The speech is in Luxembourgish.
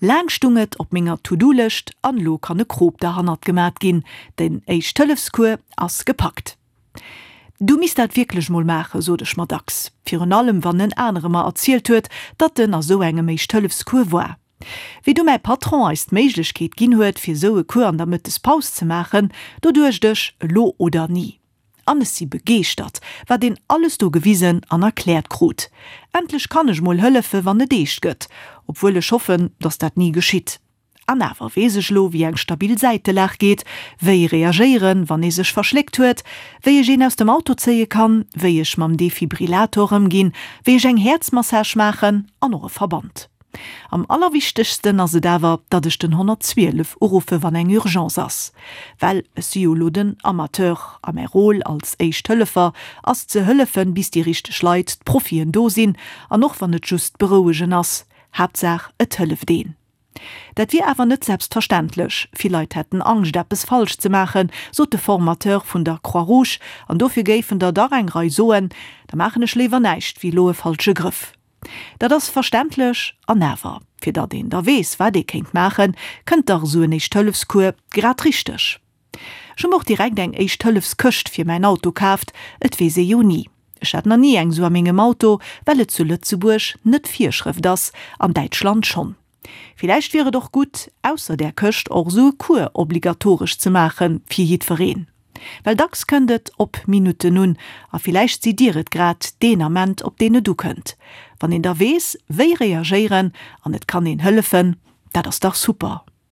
Laang stung et op menger To-Do-Lëscht an lo kann e Krop derhannert gemat ginn, den Éischt-Hëllefs-Cours ass gepackt. Du misst dat wierklech mol maachen, sot ech mer dacks, virun allem wann en anere mer erzielt huet, datt en a sou engem Éischt-Hëllefs-Cours war. Wéi du mäi Patron eis d'Méiglechkeet ginn huet, fir sou e Cours an der Mëttespaus ze maachen, do duecht ech, elo oder ni. An ech si begeeschtert, wat een alles do gewisen an erkläert krut. Endlech kann ech mol hëllefe wann et eescht gëtt, obwuel ech hoffen, datt dat ni geschitt. An awer weess ech elo, wéi eng stabil Säitelag geet, wéi reagéieren, wann ee sech verschléckt huet, wéi ech een aus dem Auto zéie kann, wéi ech mam Defibrillator ëmginn, wéi ech eng Häerzmassage maachen an och e Verband. Am allerwichtegsten ass et awer, datt ech den 112 uruffe wann eng Urgence ass. Well ech si jo elo den Amateur a mäi Rôle als Éischt-Hëllefer ass ze hëllefen, bis déi richteg Leit, d'Profien do sinn an och wann et just berouegen ass, Haaptsaach et hëlleft een. Dat wier awer net selbstverständlech. Vill Leit hätten Angscht, eppes falsch ze maachen, sot de Formateur vun der Croix-Rouge. An dofir géifen der dach eng Rei soen, Da maachen ech léiwer näischt, wéi elo e falsche Grëff. Dat ass verständlech. An awer, fir datt een da weess, wat ee kéint maachen, kënnt dach esou en Éischt-Hëllefs-Cours grad richteg. Ech hu mer och direkt eng Éischt-Hëllefs-Këscht fir mäin Auto kaaft, et weess ee jo ni. Ech hat nach ni eng sou a mengem Auto, well et zu Lëtzebuerg net Virschrëft ass, an Däitschland schonn. Villäicht wier et och gutt, ausser där Këscht och sou e Cours obligatoresch ze maache fir jiddwereen. Well dacks kënnt et op Minutten un, a villäicht sidd Dir et grad deen Ament, op deen et ukënnt. Wann een da weess, wéi reagéieren an et kann een hëllefen, dat ass dach super.